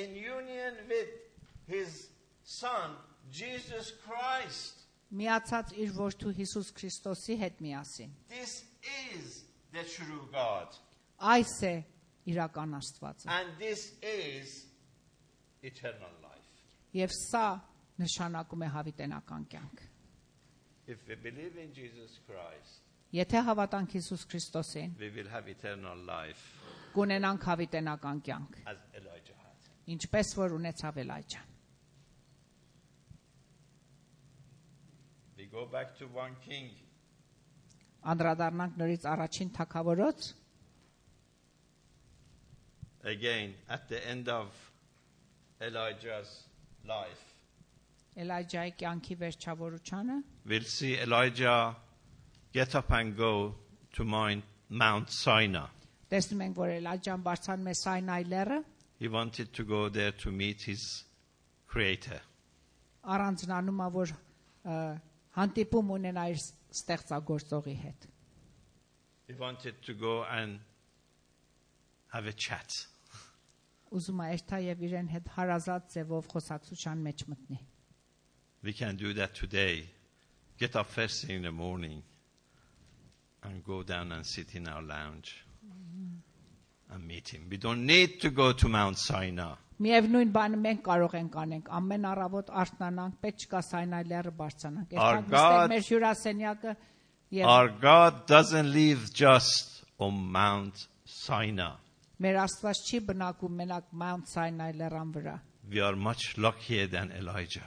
C: in union with his son Jesus Christ.
A: Միացած իր որդու Հիսուս Քրիստոսի հետ միասին։
C: This is the true God.
A: Այս է իրական Աստվածը։
C: And this is eternal life.
A: Եվ սա նշանակում է հավիտենական կյանք։
C: If we believe in Jesus Christ,
A: Եթե հավատանք Հիսուս Քրիստոսին,
C: we will have eternal life
A: կունենանք հավիտենական կյանք,
C: as Elijah had.
A: ինչպես որ ունեցավ Էլիջան։
C: We go back to 1 King.
A: Անդրադառնանք նորից առաջին թագավորոց։
C: Again, at the end of Elijah's life,
A: Էլիջայի կյանքի վերջավորությանը
C: we'll see Elijah get up and go to Mount Sinai.
A: տեսնում ենք, որ Էլիջան բարձրանում է Սայնայի լեռը,
C: He wanted to go there to meet his Creator.
A: առանձնանում է, որ հանդիպում ունենա իր ստեղծագործողի հետ։
C: He wanted to go and have a chat.
A: Ուզում է երթա եւ իրեն հետ հարազատ ձևով խոսակցության մեջ մտնի։
C: We can do that today. Get up first thing in the morning and go down and sit in our lounge and meet him. We don't need to go to Mount Sinai.
A: Միևնույն բանը մենք կարող ենք անենք, ամեն առավոտ արթնանանք, պետք չկա Սայնայի լեռը բարձրանանք։ Երթանք նստենք մեր հյուրասենյակը եւ
C: Our God doesn't live just on Mount Sinai.
A: մեր Աստված չի բնակում մենակ Mount Sinai լեռան վրա։
C: We are much luckier than Elijah.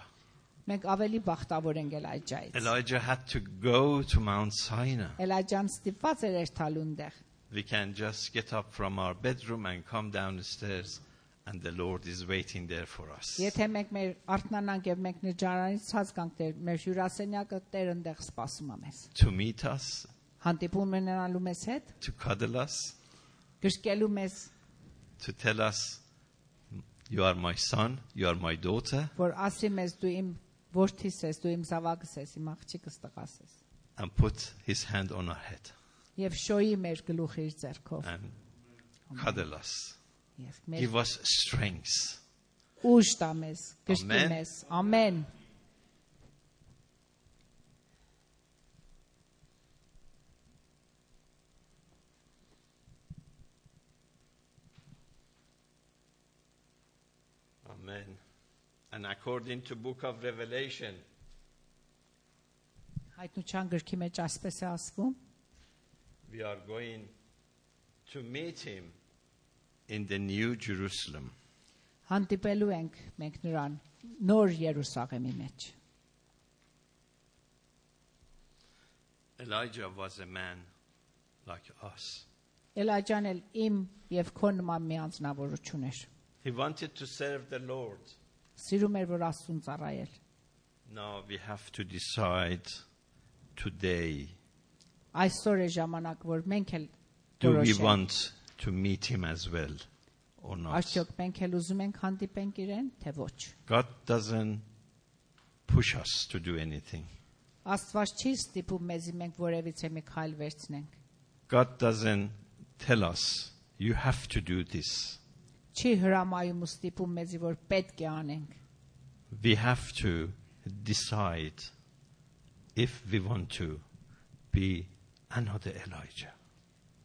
A: Մենք ավելի բախտավոր ենք Էլիջայից։
C: Elijah had to go to Mount Sinai.
A: Էլիջան ստիպված էր երթալու այնտեղ։
C: We can just get up from our bedroom and come down the stairs, and the Lord is waiting there for us.
A: Եթե մենք մեր արթնանանք եւ մենք նջարանից ցած գանք Տեր, մեր հյուրասենյակը Տեր այնտեղ սպասում է մեզ։
C: To meet us,
A: Հանդիպում ունենալու մեզ հետ,
C: to cuddle us,
A: գրկելու մեզ,
C: to tell us, you are my son, you are my daughter,
A: որ ասի մեզ դու իմ որդիս ես, դու իմ զավակս ես, իմ աղջիկս տղաս ես։
C: and put his hand on our head
A: Եվ շոյի մեր գլուխը իր ձեռքով։
C: and cuddle us.
A: Եվ մեր
C: Give us strength.
A: ուժ տա մեզ, գրկի
C: Ամեն։
A: մեզ։ Ամեն։
C: Amen. And according to book of Revelation,
A: Հայտնության գրքի մեջ ասպես է ասվում,
C: we are going to meet him in the New Jerusalem.
A: հանդիպելու ենք մենք նրան նոր Երուսաղեմի մեջ։
C: Elijah was a man like us.
A: Էլիջան էլ իմ եւ քո նման մի անձնավորություն էր։
C: He wanted to serve the Lord.
A: Սիրում էր, որ Աստծուն ծառայել։
C: Now we have to decide today,
A: Այսօր է ժամանակ, որ մենք էլ
C: do we
A: որոշենք։
C: want to meet him as well or not?
A: Արդյոք մենք էլ ուզում ենք հանդիպենք իրեն, թե ոչ։
C: God doesn't push us to do anything.
A: Աստված չի ստիպում մեզի մենք որևիցե մի քայլ վերցնենք։
C: God doesn't tell us, you have to do this.
A: Չի հրամայում ու ստիպում մեզի, որ պետք է անենք։
C: We have to decide if we want to be another Elijah.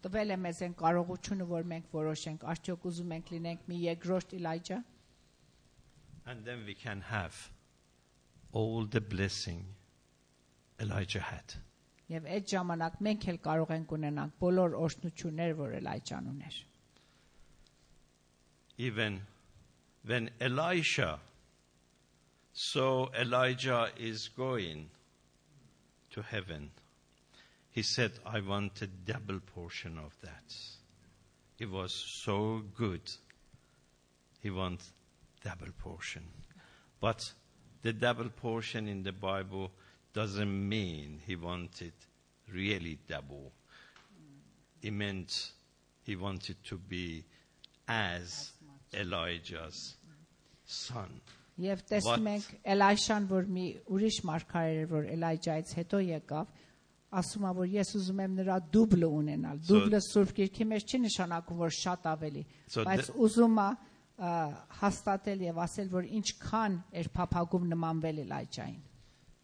A: Տվել է մեզ այն կարողությունը, որ մենք որոշենք, արդյոք ուզում ենք լինենք մի երկրորդ Էլիջա,
C: And then we can have all the blessing Elijah had.
A: եւ այդ ժամանակ մենք էլ կարող ենք ունենանք բոլոր օրհնությունները, որ Էլիջան ուներ։
C: Even when Elisha saw Elijah is going to heaven, he said, I want a double portion of that. It was so good. He wants double portion. But the double portion in the Bible doesn't mean he wanted really double. It meant he wanted to be as Elijah's son.
A: Եվ տեսնում ենք Էլիշան, որ մի ուրիշ մարգարե էր, որ Էլիջայից հետո եկավ, ասում է, որ ես ուզում եմ նրա դուբլը ունենալ։ Դուբլը Սուրբ Գիրքի մեջ չի նշանակում, որ շատ ավելի, բայց ուզում է, հաստատել եւ ասել, որ ինչքան էր փափագում նմանվել Էլիջային։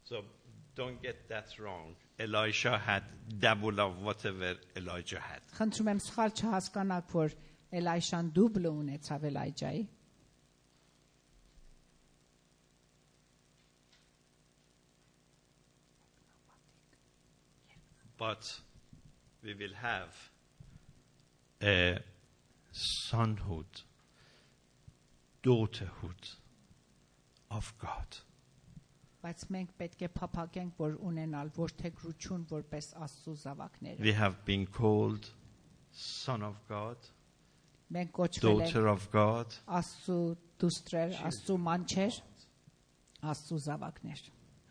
C: So don't get that wrong. Elisha had double of whatever Elijah had.
A: Խնդրում եմ սխալ չհասկանաք, որ Էլիշան դուբլը ունեցավ Էլիջայի։
C: But we will have a sonhood, daughterhood of God.
A: Բայց մենք պետք է փափագենք, որ ունենալ ոչ թե գրություն, որպես Աստծո զավակներ։
C: We have been called son of God,
A: Մենք կոչվել ենք
C: daughter of God.
A: Աստծո դուստրեր, Աստծո մանչեր, Աստծո զավակներ։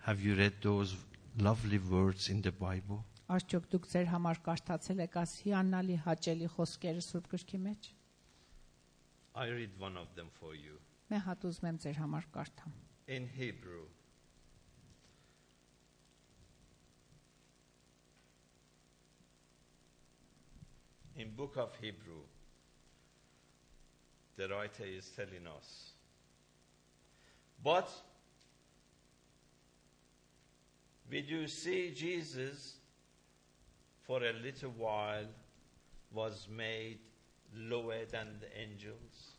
C: Have you read those lovely words in the Bible?
A: Արդյոք դուք ձեր համար կարդացել եք այս հիանալի հաճելի խոսքերը Սուրբ Գրքի մեջ։
C: I read one of them for you.
A: Მე հատուզում եմ ձեր համար կարդամ։
C: In Hebrew. In book of Hebrew, the writer is telling us, but we do see Jesus for a little while was made lower than the angels,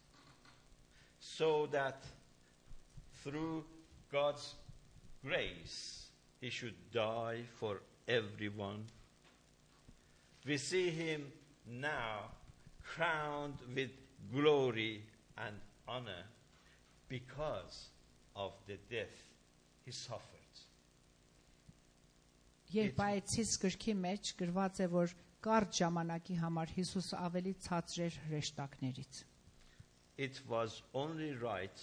C: so that through God's grace he should die for everyone. We see him now crowned with glory and honor because of the death he suffered.
A: Երբ այցից գրքի մեջ գրված է, որ կարճ ժամանակի համար Հիսուսը ավելի ցածր էր հրեշտակներից։
C: It was only right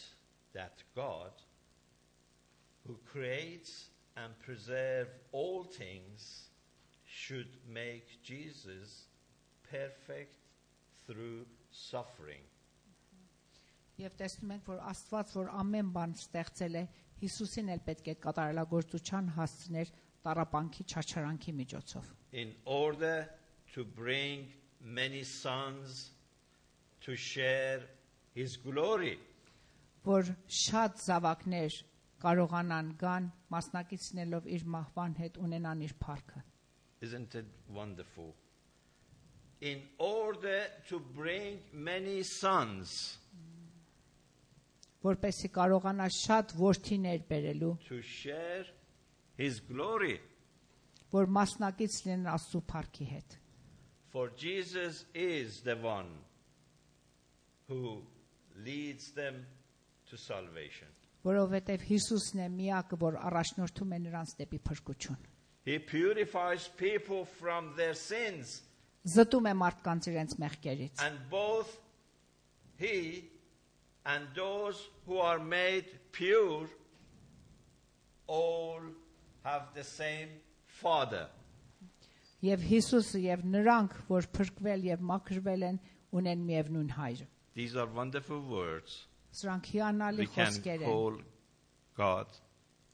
C: that God, who creates and preserves all things, should make Jesus perfect through suffering.
A: Եվ տեսնում ենք, որ Աստված, որ ամեն բան ստեղծել է, Հիսուսին էլ պետք է կատարելագործության հասցներ տառապանքի չարչարանքի միջոցով։
C: In order to bring many sons to share his glory.
A: Որ շատ զավակներ կարողանան գան մասնակիցնելով իր մահվան հետ ունենան իր փառքը։
C: Isn't it wonderful? In order to bring many sons
A: որպեսզի կարողանա շատ որդիներ բերելու,
C: to share his glory.
A: որ մասնակից լինեն Աստծո փառքի հետ։
C: For Jesus is the one who leads them to salvation.
A: Որովհետև Հիսուսն է միակը, որ առաջնորդում է նրանց դեպի փրկություն։
C: He purifies people from their sins.
A: Զտում է մարդկանց իրենց մեղքերից։
C: And both he and those who are made pure all have the same Father.
A: Եվ Հիսուսը եւ նրանք, որ փրկվել եւ մաքրվել են, ունեն միևնույն հայր։
C: These are wonderful words.
A: Սրանք հիանալի
C: We can
A: խոսքեր են,
C: call God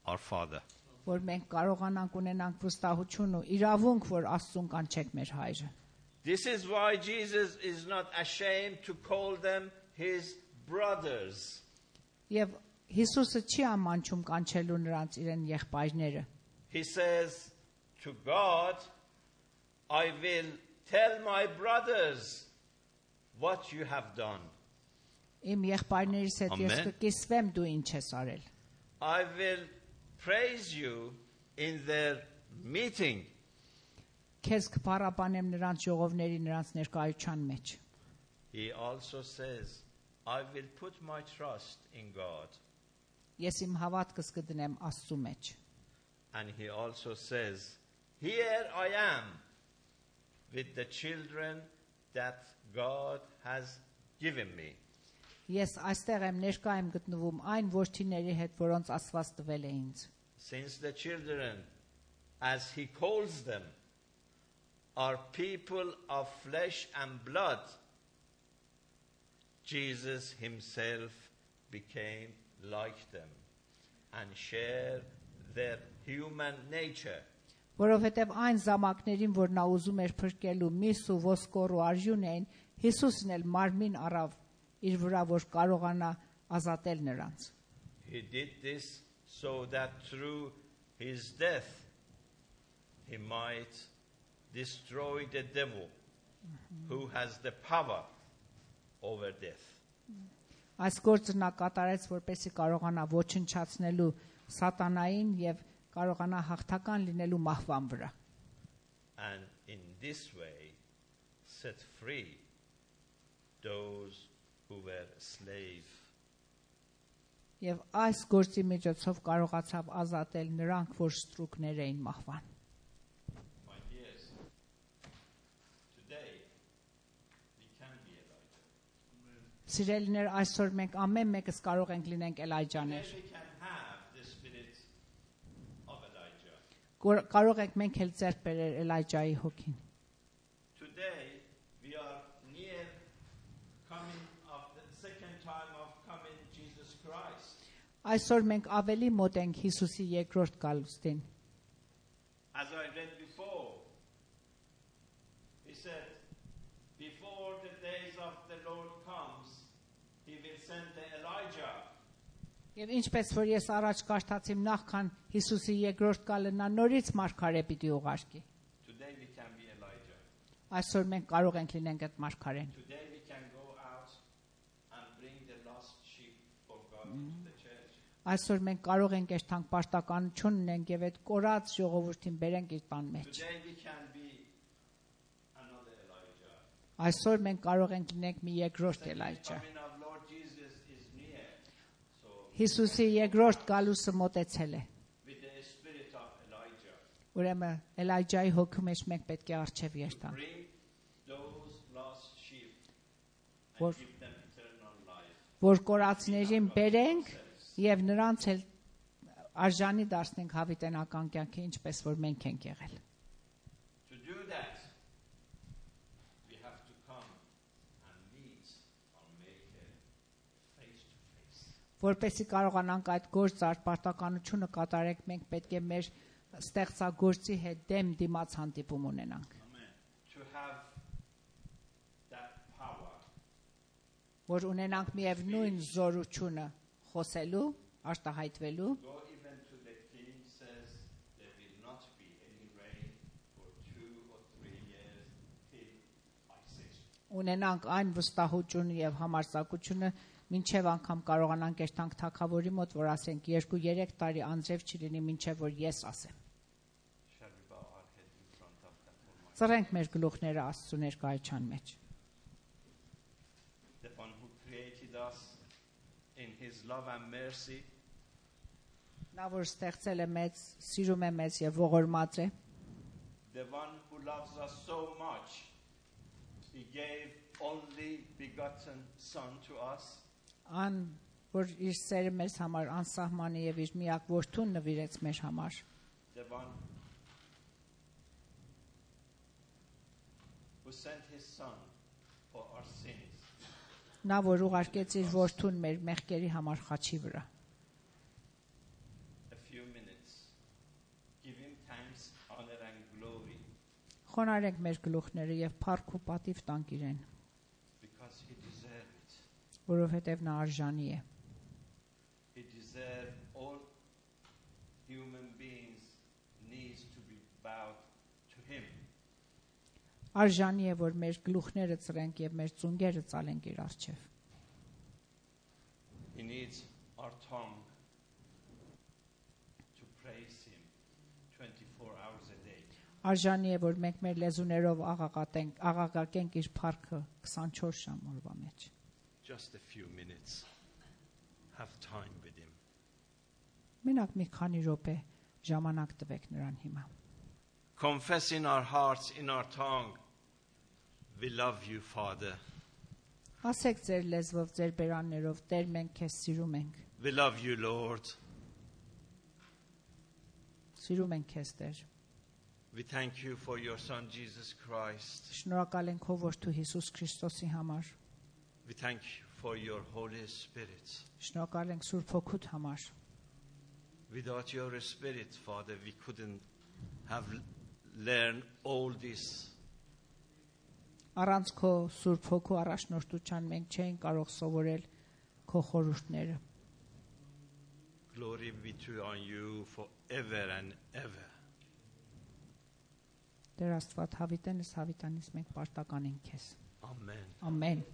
C: our Father.
A: որ մենք կարողանանք ունենանք վստահություն ու իրավունք, որ Աստծուն կանչենք մեր հայրը։
C: This is why Jesus is not ashamed to call them his brothers.
A: Եվ Հիսուսը չի ամանչում կանչելու նրանց իրեն եղբայրները։
C: He says to God, I will tell my brothers what you have done.
A: Իմ եղբայրներից հետ ես
C: Amen.
A: կկիսվեմ դու ինչ ես արել։
C: I will praise you in their meeting.
A: Քեզ կփառաբանեմ նրանց ժողովների նրանց ներկայության մեջ։
C: He also says, I will put my trust in God.
A: Ես իմ հավատքս կդնեմ Աստծու մեջ։
C: And he also says, here I am with the children that God has given me.
A: Ես այստեղ եմ ներկա եմ գտնվում այն որդիների հետ, որոնց Աստված տվել է ինձ։
C: Since the children, as he calls them, are people of flesh and blood, Jesus himself became like them and shared their human nature.
A: Որովհետև այն զամակներին, որ նա ուզում էր փրկելու, միս ու ոսկոր ու արժուն էին, Հիսուսն էլ մարմին առավ իր վրա, որ կարողանա ազատել նրանց։
C: He did this so that through his death he might destroy the devil who has the power over death.
A: Այս գործը նա կատարեց, որպեսզի կարողանա ոչնչացնելու սատանային եւ կարողանա հաղթական լինելու մահվան վրա։
C: And in this way set free those who were slave.
A: Եվ այս գործի միջոցով կարողացավ ազատել նրանք, որ ստրուկներ էին մահվան։
C: My dears, today we can be Elijah.
A: Սիրելիներ, այսօր մենք ամեն մեկս կարող ենք լինենք Էլայջաներ։
C: Today we can have the spirit of Elijah.
A: Կարող ենք մենք էլ ձեռք բերել Էլայջայի հոգին։
C: Today we are near coming of the second time of coming Jesus Christ.
A: Այսօր մենք ավելի մոտ ենք Հիսուսի երկրորդ գալուստին։
C: As I read before, he said, before the days of the Lord comes, he will send the Elijah.
A: Եվ ինչպես որ ես առաջ կարդացիմ նախքան Հիսուսի երկրորդ գալը նա նորից մարգարե պիտի ուղարկի։
C: Today we can be Elijah.
A: Այսօր մենք կարող ենք լինենք այդ մարգարեն։
C: Today we can go out and bring the lost sheep for God into the church.
A: Այսօր մենք կարող ենք երթանք պարտականություն ունենք եւ այդ կորած ժողովրդին բերենք իր տան մեջ։
C: Today we can be another Elijah.
A: Այսօր մենք կարող ենք լինենք մի երկրորդ Էլայջա։
C: Coming of Lord Jesus is near. So
A: Հիսուսի երկրորդ գալուստը մոտեցել է։
C: with the spirit of Elijah,
A: Ուրեմն Էլայջայի հոգու մեջ մենք պետք է արչև երթանք։
C: bring those lost sheep and
A: Որ-
C: give them eternal life.
A: Որ կորածներին բերենք եւ նրանց էլ արժանի դարձնենք հավիտենական կյանքի, ինչպես որ մենք ենք եղել։
C: To do that, we have to come and meet our Maker face to face.
A: Որպեսզի կարողանանք այդ գործ պարտականությունը կատարենք, մենք պետք է մեր ստեղծագործի հետ դեմ դիմաց հանդիպում ունենանք,
C: To have that power
A: որ ունենանք միևնույն զորությունը խոսելու, արտահայտվելու,
C: go even to the king says there will not be any rain for 2 or 3 years till I say so.
A: ունենանք այն վստահությունը եւ համարձակությունը, մինչեւ անգամ կարողանանք երթանք թագավորի մոտ, որ ասենք 2-3 տարի անձրև չլինի, մինչեւ որ ես ասեմ։
C: Shall we bow our head in front of that Almighty?
A: Ծռենք մեր գլուխները Աստծո ներկայության մեջ։
C: The one who created us in his love and mercy,
A: Նա որ ստեղծել է մեզ, սիրում է մեզ եւ ողորմած է,
C: the one who loves us so much, he gave only begotten son to us.
A: ան որ իր սերը մեզ համար անսահման է եւ իր միակ որդուն նվիրեց մեր համար,
C: The one who sent his son for our sins.
A: նա որ ուղարկեց իր որդուն մեր մեղքերի համար խաչի վրա։
C: A few minutes. Give him thanks, honor and glory
A: Խոնարհենք մեր գլուխները եւ փառք ու պատիվ տանք իրեն,
C: because he deserved it.
A: որովհետեւ նա արժանի է։
C: He deserved all human beings needs to be bowed to him.
A: Արժանի է, որ մեր գլուխները ծրենք եւ մեր ծունգերը ծալենք իր առջև։
C: He needs our tongue to praise him 24 hours a day.
A: Արժանի է, որ մենք մեր լեզուներով աղաղակենք իր փառքը 24 ժամ օրվա մեջ։
C: Just a few minutes. Have time with him.
A: Մենակ մի քանի րոպե ժամանակ տվեք նրան հիմա։
C: Confess in our hearts, in our tongue, we love you, Father.
A: Ասեք ձեր լեզվով, ձեր բերաններով, Տեր, մենք քեզ սիրում ենք։
C: We love you, Lord.
A: Սիրում ենք քեզ, Տեր։
C: We thank you for your Son, Jesus Christ.
A: Շնորհակալ ենք քո որդու Հիսուս Քրիստոսի համար։
C: We thank you for your Holy Spirit.
A: Շնորհակալ ենք Սուրբ Հոգուդ համար։
C: Without your Spirit, Father, we couldn't have learned all this.
A: Առանց քո Սուրբ Հոգու առաջնորդության մենք չենք կարող սովորել քո խորհուրդները։
C: Glory be to on you forever and ever.
A: Տեր Աստված հավիտենս հավիտանից մենք պարտական ենք քեզ։
C: Amen.
A: Ամեն։